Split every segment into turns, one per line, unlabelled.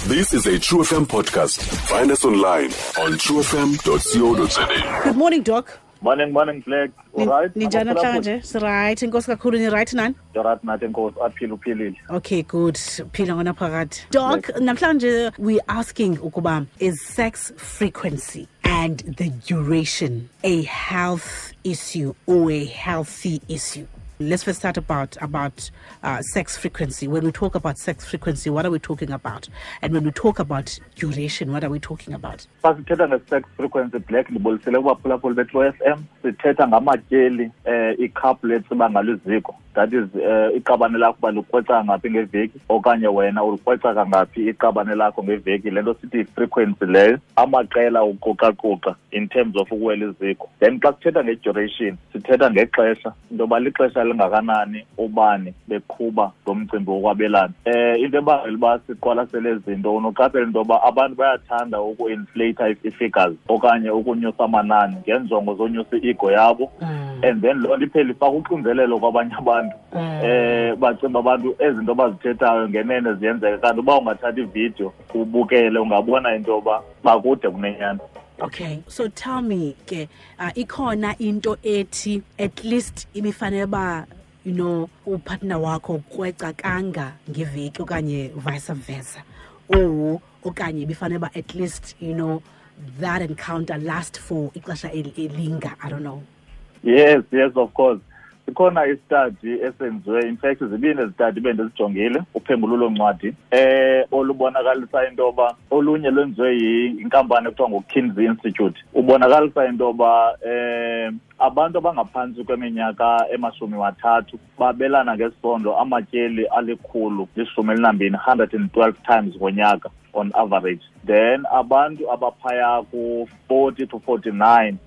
This is a True FM podcast. Find us online on truefm.co.za.
Good morning, Doc.
Morning, morning, Black. All right?
Ninjani namhlanje? Siright. Inkosi kakhulu, ni right nani?
Right nathi, inkosi, aphile, uphilile.
Okay, good. Phila ngonaphakade. Doc, namhlanje we asking ukuba is sex frequency and the duration a health issue or a healthy issue? Let's first start about sex frequency. When we talk about sex frequency, what are we talking about? And when we talk about duration, what are we talking about?
Xa sithetha nge-sex frequency, Black, ndibulisele kubaphulaphuli beTrue FM. Sithetha ngamatyeli i-couple etsiba ngalo iziko, that is iqabane lakho uba likrweca ngaphi ngeveki okanye wena ulikrweca kangaphi iqabane lakho ngeveki. Le nto sithi yi-frequency leyo, amaqela uquqaquqa in terms of ukuwela iziko. Then xa sithetha nge-duration, sithetha ngexesha, into yoba lixesha lingakanani ubani beqhuba lo mcimbi wokwabelana. Into ebangela uba siqwalasele ezi zinto, unoqaphela into yoba abantu bayathanda uku-inflata ii-figures okanye ukunyusa amanani ngeenjongo zonyusa i-ego yabo, and then loo nto iphele ifaka uxinzelelo kwabanye abantu. Bacinga abantu ezinto bazithethayo ngenene ziyenzeka, kanti uba ungathatha ividiyo ubukele ungabona into yoba bakude kunenyani.
Okay, so tell me ke, ikhona into ethi at least ibifanele ba upartner wakho ukweca kanga ngeveki okanye vice versa, or okanye ibifanele ba at least that encounter last for ixesha elinga, I don't know?
Yes, of course. Sikhona i-study esenziwe, in fact zibini ezi-study bendizijongile, uphengululo ncwadi olubonakalisa into yoba olunye lwenziwe yinkampani ekuthiwa nguKinsey Institute, ubonakalisa into yoba abantu abangaphantsi kweminyaka ema-30 babelana ngesondo amatyeli 112, 112 times ngonyaka on average. Then abantu abaphaya ku-40 to 49,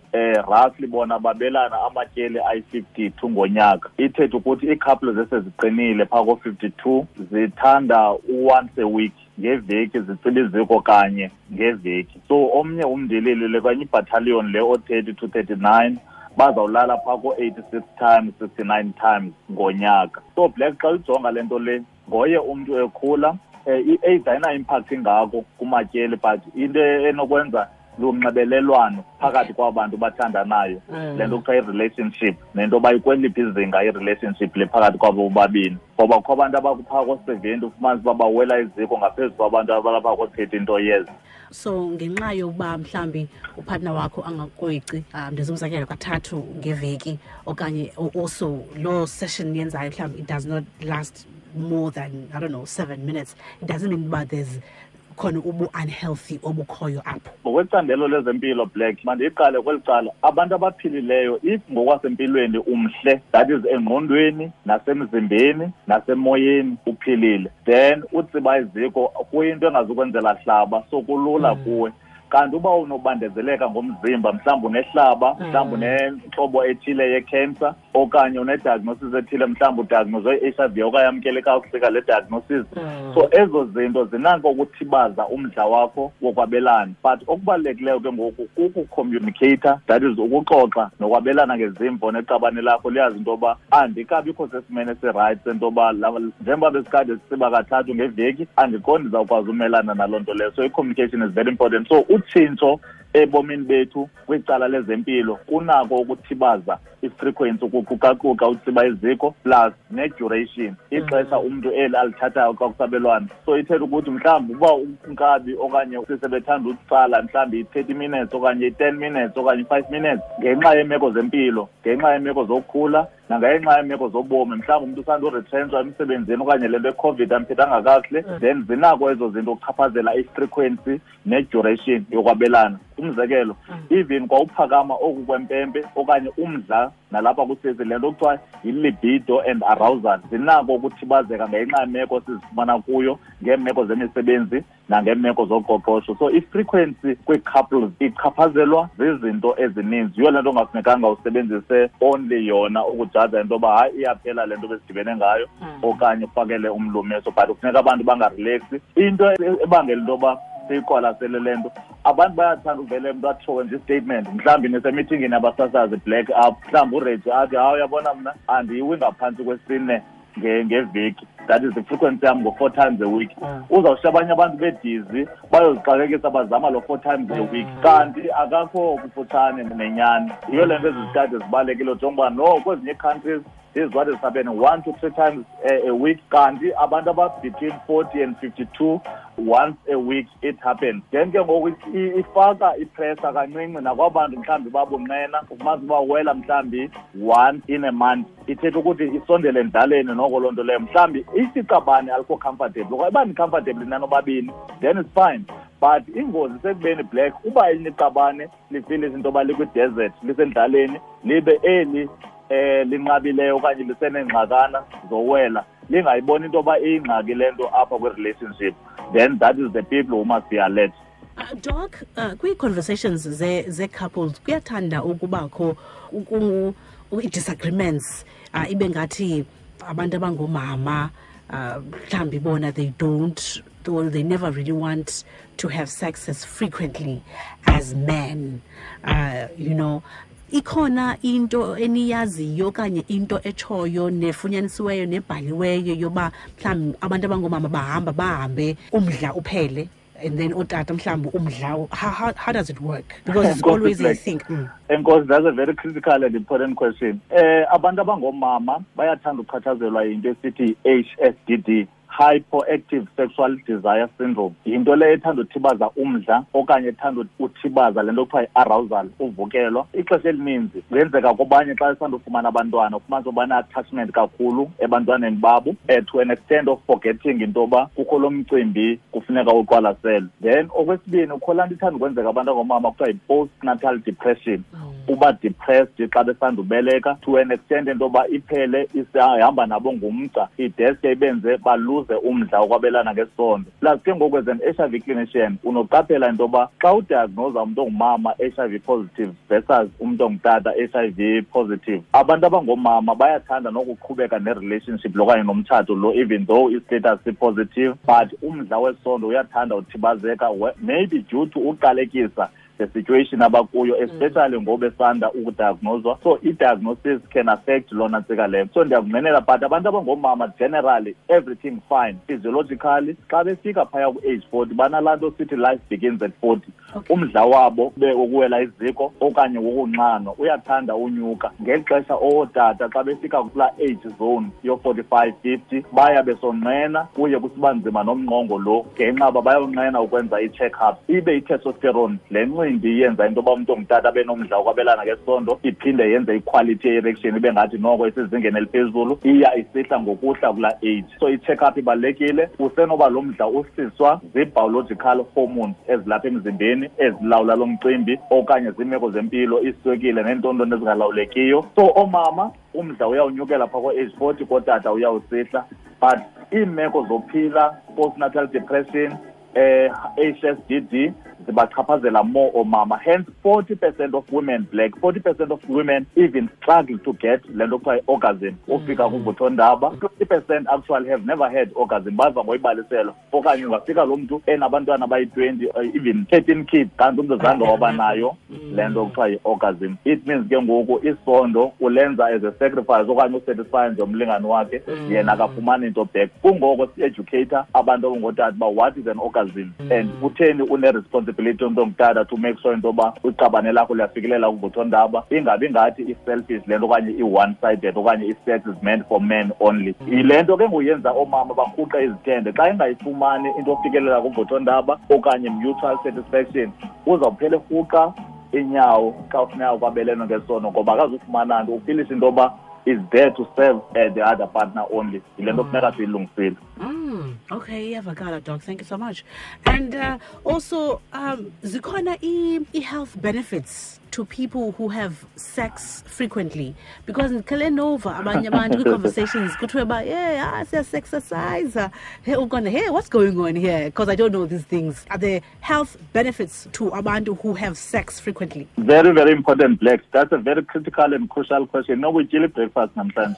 roughly bona babelana amatyeli ayi-52 ngonyaka. Ithethe ukuthi ii-couple zeseziqinile phaa ko-52 zithanda u-once a week, ngeveki zitsiba iziko kanye ngeveki. So omnye umndilili le kanye ibattalion le o-30 to 39 bazawulala phaa ko-86 times, 69 times ngonyaka. So Black, xa ujonga le nto le, ngoye umntu ekhula, i-age ayina-impact ingako kumatyeli, but into enokwenza lunxibelelwano phakathi kwabantu bathandanayo, le nto kuthiwa i-relationship, nento yoba ikweliphi izinga i-relationship le phakathi kwabo bobabini, ngoba kukho abantu abakuphaa ko-70 ufumanise uba bawela iziko ngaphezu kwabantu abalapha ko-30 into years.
So ngenxa yokuba mhlambi upartner wakho angakrweci, ndenza umzekelo, kathathu ngeveki okanye also loo session yenzayo mhlawumbi it does not last more than, I don't know, 7 minutes, it doesn't mean uba there's khona ubu-unhealthy obukhoyo apho?
Ngokwecandelo lezempilo, Black, mandiyiqale kweli cala. Abantu abaphilileyo, if ngokwasempilweni umhle, that is engqondweni nasemzimbeni nasemoyeni uphilile, then utsiba iziko kuyinto engazukwenzela hlaba, so kulula kuwe. Kanti uba unobandezeleka ngomzimba, mhlawumbi unehlaba, mhlawumbi unentlobo ethile ye-cancer okanye une-diagnosis ethile, mhlawumbi udiagnoswe i-HIV okanye yamkele kakuhle le diagnosis, so ezo zinto zinako ukuthibaza umdla wakho wokwabelana. But okubalulekileyo ke ngoku kukucommunicata, that is ukuxoxa nokwabelana ngezimvo neqabane lakho, liyazi into yoba andikabikho sesimeni esirayithi sento yoba njengoba besikade sisiba kathathu ngeveki, andiqondi ndizawukwazi umelana naloo nto leyo. So i-communication is very important. So utshintsho ebomini bethu kwicala lezempilo kunako ukuthibaza i-frequency, ukuqukaquka utsiba iziko, plus ne-duration, ixesha umntu eli alithathayo xa kusabelwana. So ithetha ukuthi mhlawumbi uba unkabi okanye sisebethanda utsala mhlawumbi i-30 minutes okanye i-10 minutes okanye i-5 minutes, ngenxa yeemeko zempilo, ngenxa yeemeko zokukhula nangenxa yeemeko zobomi, mhlawumbi umntu usanduretrenchwa emsebenzini okanye le nto yeCOVID amphethanga kakuhle, then zinako ezo zinto ukuchaphazela i-frequency ne-duration yokwabelana. Umzekelo, even kwawuphakama oku kwempempe okanye umdla nalapha kusisi, le nto kuthiwa yi-libido and arousal, zinako ukuthibazeka ngenxa yemeko sizifumana kuyo, ngeemeko zemisebenzi nangeemeko zoqoqosho. So i-frequency kwii-couples ichaphazelwa zizinto ezininzi. Yiyo le nto ungafunekanga usebenzise only yona ukujaja into yoba hayi, iyaphela le nto besidibene ngayo okanye ufakele umlumiso. But kufuneka abantu bangarelaxi. Into ebangela into yoba siyiqwalasele le nto, abantu bayathanda uvele umntu atshowe nje i-statement, mhlawumbi nisemithingini abasasazi, Black, up mhlawumbi uReji athi, "Hayi, uyabona mna andiyiwi ngaphantsi kwesine." Ngeveki, that is the frequency yam ngo-4 times a week. Uzawushiya abanye abantu bedizi bayozixakekisa bazama lo 4 times a week, kanti akakho kufutshane nenyani. Yiyo le nto ezi zitadi zibalulekile, njengoba no kwezinye ii-countries this is what is happening 1 to 3 times a week, kanti abantu aba-between 40 and 52 once a week it happens. Then ke ngoku ifaka ipressure kancinci nakwabantu mhlawumbi babunqena, ufumanisa uba wela mhlawumbi once in a month. Ithetha ukuthi isondele endlaleni noko loo nto leyo. Mhlawumbi isiqabane alikho comfortable, okanye uba ni-comfortable nanobabini then it's fine. But ingozi sekubeni black, uba elinye iqabane lifile izinto yoba likwi-desert, lisendlaleni, libe eli linqabileyo okanye liseneengxakana zowela, lingayiboni into yoba iyingxaki le nto apha kwi-relationship, then that is the people who must be alert.
Doc, kwii-conversations ze-couples kuyathanda ukubakho i-disagreements, ibe ngathi abantu abangoomama mhlawumbi bona they don't, or they never really want to have sex as frequently as men. Ikhona into eniyaziyo okanye into etshoyo nefunyanisiweyo nebhaliweyo yoba mhlawumbi abantu abangoomama bahamba bahambe umdla uphele, and then ootata mhlawumbi umdla, how does it work? Because it's always a thing.
Enkosi, that's a very critical and important question. Abantu abangoomama bayathanda ukuchatshazelwa yinto esithi HSDD, Hypoactive Sexual Desire Syndrome. Yinto leyo ethanda uthibaza umdla okanye ethanda uthibaza le nto kuthiwa yi-arousal, uvukelwa. Ixesha elininzi kuyenzeka kwabanye xa besanda ufumana abantwana, ufumanise uba bane-attachment kakhulu ebantwaneni babo, to an extent of forgetting into yoba kukho lo mcimbi kufuneka uqwalaselwe. Then okwesibini, kukho laa nto ithanda ukwenzeka abantu abangoomama kuthiwa yi-postnatal depression. Uba depressed xa besanda ubeleka to an extent into yoba iphele isihamba nabo ngumgca, ideske ibenze baluze umdla wokwabelana ngesondo. Plus ke ngoku as an HIV clinician unoqaphela into yoba xa udiagnosa umntu ongumama HIV positive versus umntu ongutata HIV positive, abantu abangoomama bayathanda nokuqhubeka ne-relationship lo okanye nomtshato lo even though i-status si-positive, but umdla wesondo uyathanda uthibazeka, maybe due to uqalekisa the situation abakuyo, especially ngoba besanda ukudiagnoswa. So i-diagnosis can affect lona ntsika leyo. So ndiyakunqwenela, but abantu abangoomama generally everything fine physiologically. Xa befika phaya ku-age 40 banalaa nto sithi life begins at 40. Umdla wabo ube wokuwela iziko okanye wokunxanwa uyathanda unyuka. Ngeli xesha ootata xa befika kulaa age zone yo-45, 50 baya besonqena, kuye kusiba nzima nomnqongo lo ngenxa uba bayonqena ukwenza i-check-up. Ibe i-testosterone le ncindi iyenza into yoba umntu ongutata abe nomdla wokwabelana ngesondo, iphinde yenze iquality ye-erection ibe ngathi noko isezingeni eliphezulu, iya isihla ngokuhla kulaa age. So i-check-up ibalulekile. Usenoba lo mdla usiswa zii-biological hormones ezilapha emzimbeni ezilawula lo mcimbi, okanye ziimeko zempilo, iswekile neentontoni ezingalawulekiyo. So oomama umdla uyawunyukela phaa ko-age 40, kootata uyawusihla. But iimeko zophila, postnatal depression, HSDD zibachaphazela more oomama. Hence 40% of women black, 40% of women even struggle to get le nto kuthiwa yi-orgasm, ufika kuvuthondaba. 20% actually have never had orgasm, bava ngoyibaliselwa. Okanye ungafika lo mntu enabantwana abayi-20, even 13 kids, kanti umntu zange waba nayo le nto kuthiwa yi-orgasm. It means ke ngoku isondo ulenza as a sacrifice okanye usatisfy nje umlingane wakhe, yena akafumani into back. Kungoko si-educator abantu abangootata uba what is an orgasm and kutheni une-responsibility umntu ongutata to make sure into yoba iqabane lakho liyafikelela kuvuthondaba, ingabi ngathi i-selfish le nto okanye i-one-sided okanye i-sex is meant for men only. Yile nto ke ngoyenza oomama barhuqe izithende. Xa engayifumani into yofikelela kuvuthondaba okanye mutual satisfaction, uzawuphela erhuqa inyawo xa kufuneka kwabelene ngesono, ngoba akazufumana nto, ufilisha into yoba is there to serve the other partner only. Yile nto kufuneka siyilungisile.
Okay, iyavakala, Doc. Thank you so much. And also, zikhona i-health benefits to people who have sex frequently? Because ndikhele nova abanye abantu kwi-conversations kuthiwe uba, yeah, siya-sexercise. Hey, ugona, hey, what's going on here? Because I don't know these things. Are there health benefits to abantu who have sex frequently?
Very, very important, Black. That's a very critical and crucial question. No, we chili breakfast namhlanje.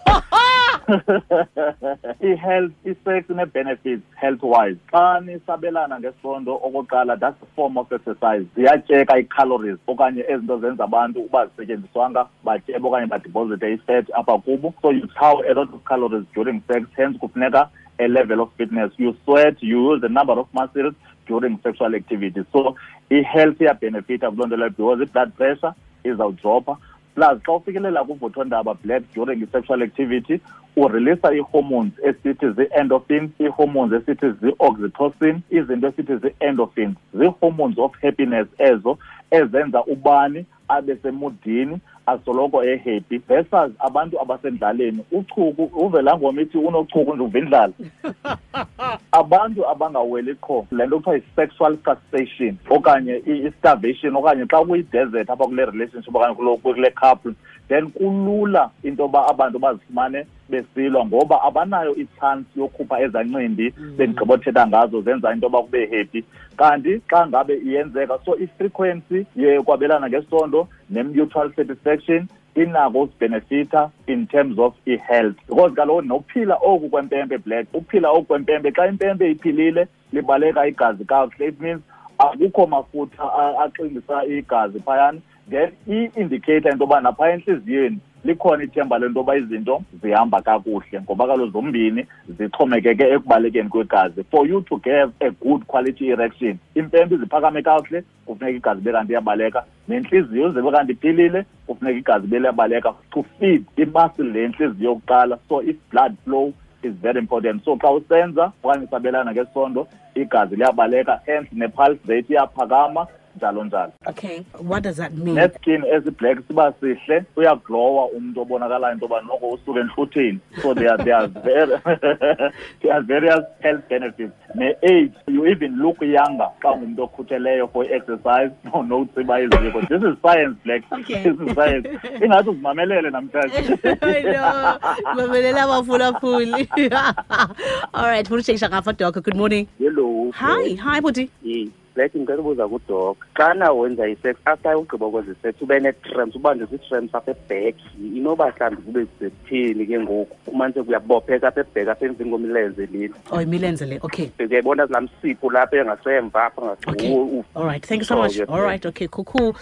I-health, i-sex ine-benefits health-wise. Xa nisabelana ngesondo okokuqala, that's a form of exercise. Ziyatyeka ii-calories okanye ezinto zenza abantu uba zisetyenziswanga batyebe okanye badeposite i-fat apha kubo. So you chow a lot of calories during sex, hence kufuneka a level of fitness. You sweat, you use a number of muscles during sexual activity. So i-health iyabenefita kuloo nto leyo because i-blood pressure izawudropha. Plus xa ufikelela kuvuthondaba, Black, during i-sexual activity ureleasa ii-hormones esithi zii-endorphins, ii-hormones esithi zii-oxytocin, izinto esithi zii-endorphins, zii-hormones of happiness ezo ezenza ubani abe semudini, asoloko ehappy, versus abantu abasendlaleni. Uchuku, uve laa ngoma ithi unochuku nje uva indlala. Abantu abangaweli qho, le nto kuthiwa yi-sexual frustration okanye i-starvation, okanye xa kuyi-desert apha kule relationship okanye kule couple, then kulula into yoba abantu bazifumane besilwa ngoba abanayo i-chance yokhupha ezaa ncindi bendigqibothetha ngazo zenza into yoba kube happy. Kanti xa ngabe iyenzeka, so i-frequency yokwabelana ngesondo ne-mutual satisfaction inako usibenefitha in terms of i-health, because kaloku nokuphila oku kwempempe, Black, uphila oku kwempempe, xa impempe iphilile libaleka igazi kakuhle, it means akukho mafutha axingisa igazi phayana. Then i-indicator into yoba naphaya entliziyweni likhona ithemba lento yoba izinto zihamba kakuhle, ngoba kaloku zombini zixhomekeke ekubalekeni kwegazi. For you to have a good quality erection, impempe iziphakame kakuhle, kufuneka igazi ibe kanti iyabaleka, nentliziyo ize ibe kanti iphilile, kufuneka igazi ibe liyabaleka to feed imuscle le ntliziyo yokuqala. So if blood flow is very important. So xa usenza okanye usabelana ngesondo, igazi liyabaleka, hence ne-pulse rate iyaphakama, njalo njalo.
Okay, what does that mean?
Neskin esi-black siba sihle, uyaglowa umntu obonakalayo into yoba noko usuke entlutheni. So there are various health benefits. Ne-age, you even look younger xa ungumntu okhutheleyo for i-exercise, notsiba iziko. This is science, Black.
Okay.
This is science. Ingathi uzimamelele namhlanje.
I know. Mamelela abaphulaphuli. All right, funa utshekisha ngapha, Doc. Good morning.
Hello.
Hi, bhuti.
Yes. Black, ngicela ubuza kuDoc. Xana wenza i-sex, after ugqiba ukwenza i-sex, ube nee-cramps, ubanjwe zii-cramps apha eback. Inoba mhlawumbi kube sekutheni ke ngoku? Umanise kuyabopheka apha eback, apha emveni kwemilenze lena.
Oh, imilenze le, okay.
Uyayibona laa msipho lapha engasemva apha
Okay. All right, thank you so much.
Oh, yes,
All right, okay, cool, cool.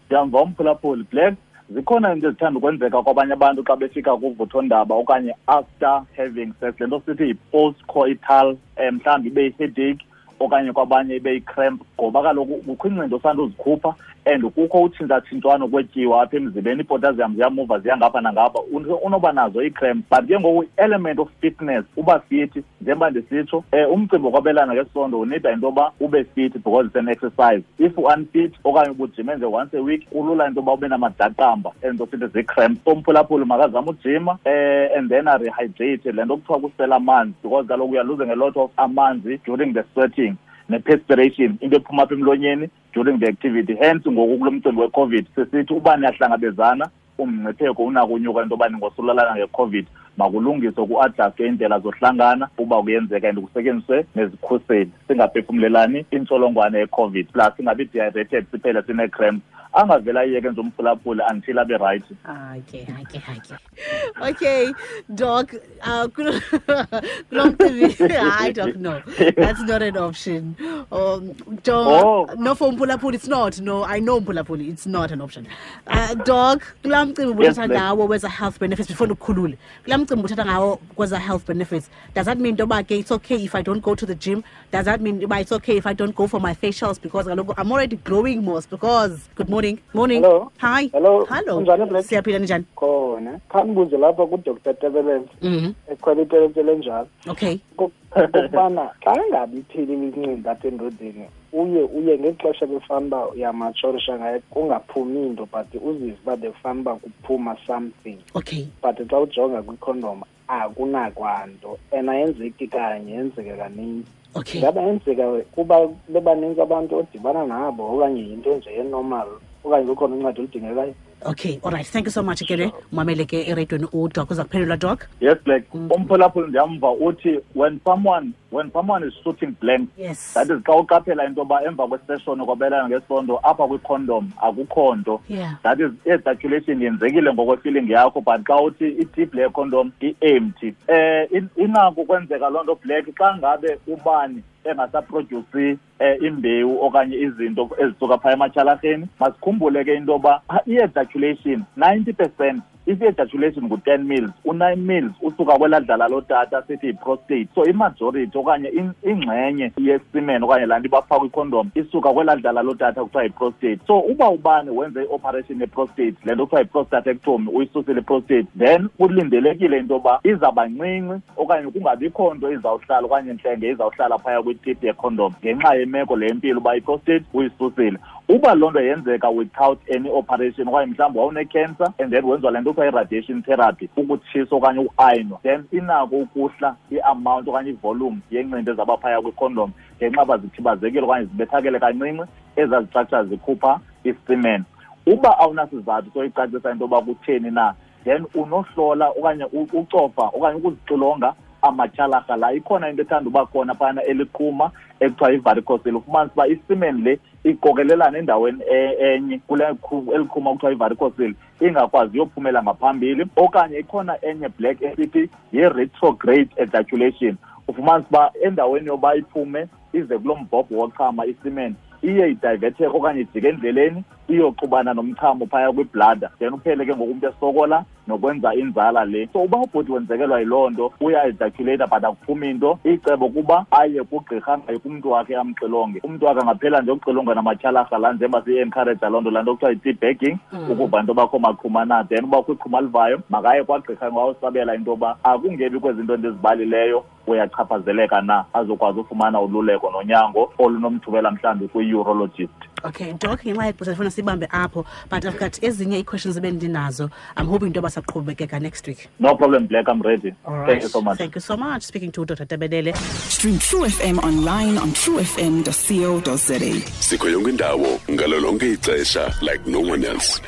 Ndiyamva umphulaphuli, Black. Zikhona into ezithanda ukwenzeka kwabanye abantu xa befika kuvuthondaba okanye after having sex. Le nto sithi yi-post-coital, mhlawumbi ibe yi-headache okanye kwabanye ibe yi-cramp, ngoba kaloku kukho iincindi osanda uzikhupha and kukho utshintshatshintshwano kwetyiwa apha emzimbeni, iipotassium ziyamuva ziya ngapha nangapha, unoba nazo ii-cramp. But ke ngoku i-element of fitness, uba fit, njengoba ndisitsho, umcimbi wokwabelana ngesondo unida into yoba ube fit because it's an exercise. If u-unfit okanye ubujime nje once a week, kulula into yoba ube namadaqamba ento sithi zii-cramps. So umphulaphuli makazame ujima, and then arehydrate, le nto kuthiwa kusela amanzi, because kaloku uya losing a lot of amanzi during the sweating ne-perspiration, into ephuma apha emlonyeni during the activity. Hence ngoku kulo mcimbi we-COVID sisithi uba niyahlangabezana, umngcipheko unako unyuka into yoba ningosulalana nge-COVID. Makulungiswe ku-adjustwe iindlela zohlangana uba kuyenzeka and kusetyenziswe nezikhuseli, singaphefumlelani intsholongwane ye-COVID, plus singabi dehydrated siphele sinee-cramps. Angavele ayiyeke nje umphulaphuli until abe right.
Okay. Okay, Doc, kulo mcimbi, hayi, Doc, no, that's not an option. Doc,
Oh.
no, for umphulaphuli, it's not. No, I know umphulaphuli, it's not an option. Doc, kulaa mcimbi
Yes,
ubuthetha
ma'am.
ngawo weza health benefits, before ndikukhulule, kulaa mcimbi ubuthetha ngawo kweza health benefits, does that mean into yoba ke it's okay if I don't go to the gym? Does that mean uba it's okay if I don't go for my facials? Because kaloku I'm already glowing most, because, good morning. Morning.
Hello.
Hi.
Hello.
Hello.
Unjani, Black?
Siyaphila, ninjani?
Khona. Khandibuze lapha kuDr Tebelele. Ekhwela iteletele njalo.
Okay.
Kukubana xa ingabi iphelile incindi apha endodeni, uye ngexesha befana uba uyamatshorisha ngaye kungaphumi into, but uzive uba bekufana uba kuphuma something.
Okay.
But xa ujonga kwikhondom akunakwanto, and ayenzeki kanye, yenzeka kaninzi.
Okay.
Ingaba yenzeka kuba bebaninzi abantu odibana nabo okanye yinto nje enormal okanye kukhona uncedo oludingekayo?
Okay, all right, thank you so much ke le. Mamele ke eradiweni, udoc uza kuphendula, doc.
Yes, Black. Umphulaphuli ndiyamva uthi when someone is shooting blank, that is xa uqaphela into yoba emva kwesession kwabelana ngesondo apha kwicondom akukho nto. That is i-ejaculation yenzekile ngokwefeeling yakho, but xa uthi itip le condom i-empty, inako ukwenzeka loo nto, Black, xa ngabe ubani engasaproduce imbewu okanye izinto ezisuka phaya ematyhalarheni. Masikhumbule ke into yoba i-ejaculation, 90%, if i-ejaculation ngu-10 mils, u-9 mils usuka kwelaa dlala lotata sithi yi-prostate. So imajority okanye ingxenye yesemen okanye laa nto ibapha kwicondom isuka kwelaa dlala lotata kuthiwa yi-prostate. So uba ubani wenze i-operation ye-prostate, le nto kuthiwa yi-prostatectomy, uyisusile i-prostate, then kulindelekile into yoba izawuba ncinci okanye kungabikho nto izawuhlala okanye ntlenge izawuhlala phaya kwitip yecondom ngenxa yemeko le yempilo uba i-prostate uyisusile. Uba loo nto yenzeka without any operation, okanye mhlawumbi wawune-cancer and then wenziwa le nto kuthiwa i-radiation therapy, ukutshiswa okanye uayinwa, then inako ukuhla i-amount okanye ivolume yencindi ezaba phaya kwicondom ngenxa uba zithibazekile okanye zibethakele kancinci ezaa zistructure zikhupha isemen. Uba awunasizathu soyicacisa into yoba kutheni na, then unohlola okanye ucofa okanye ukuzixilonga amatyhalarha la. Ikhona into ethanda uba khona phana eliqhuma ekuthiwa yivaricocele. Ufumanisa uba isemen le iqokelelana endaweni enye kule eliqhuma kuthiwa yivaricocele, ingakwazi yophumela ngaphambili. Okanye ikhona enye, Black, esithi yi-retrograde ejaculation. Ufumanisa uba endaweni yoba iphume ize kulo mbhobho wochama isemen, iye idivetheke okanye ijike endleleni iyoxubana nomchamo phaya kwibladder, then uphele ke ngoku umntu esokola nokwenza inzala le. So uba ubhuti wenzekelwa yiloo nto, uya-ejaculata but akuphumi into, icebo kuba aye kugqirha, angayi kumntu wakhe, amxilonge. Umntu wakhe angaphela nje ukuxilonga namatyhalarha la, njengoba siyi-encourage loo nto, laa nto kuthiwa yi-tea bagging, ukuva into bakho maqhuma na. Then uba kwiqhuma livayo, makaye kwagqirha ngawusabela into yoba akungebi kwezinto ndizibalileyo uyachaphazeleka na, azokwazi ufumana ululeko nonyango olunomthubela mhlawumbi kwi-urologist.
Okay, doc, ngenxa yexesha ndifuna sibambe apho, but I've got ezinye ii-questions ebendinazo. I'm hoping into yoba saqhubekeka next week.
No problem, Black, I'm ready.
All right.
Thank you so much.
Thank you so much. Speaking to Dr Tebelele.
Stream True FM online on truefm.co.za.
Sikho yonke indawo ngalo lonke ixesha like no one else.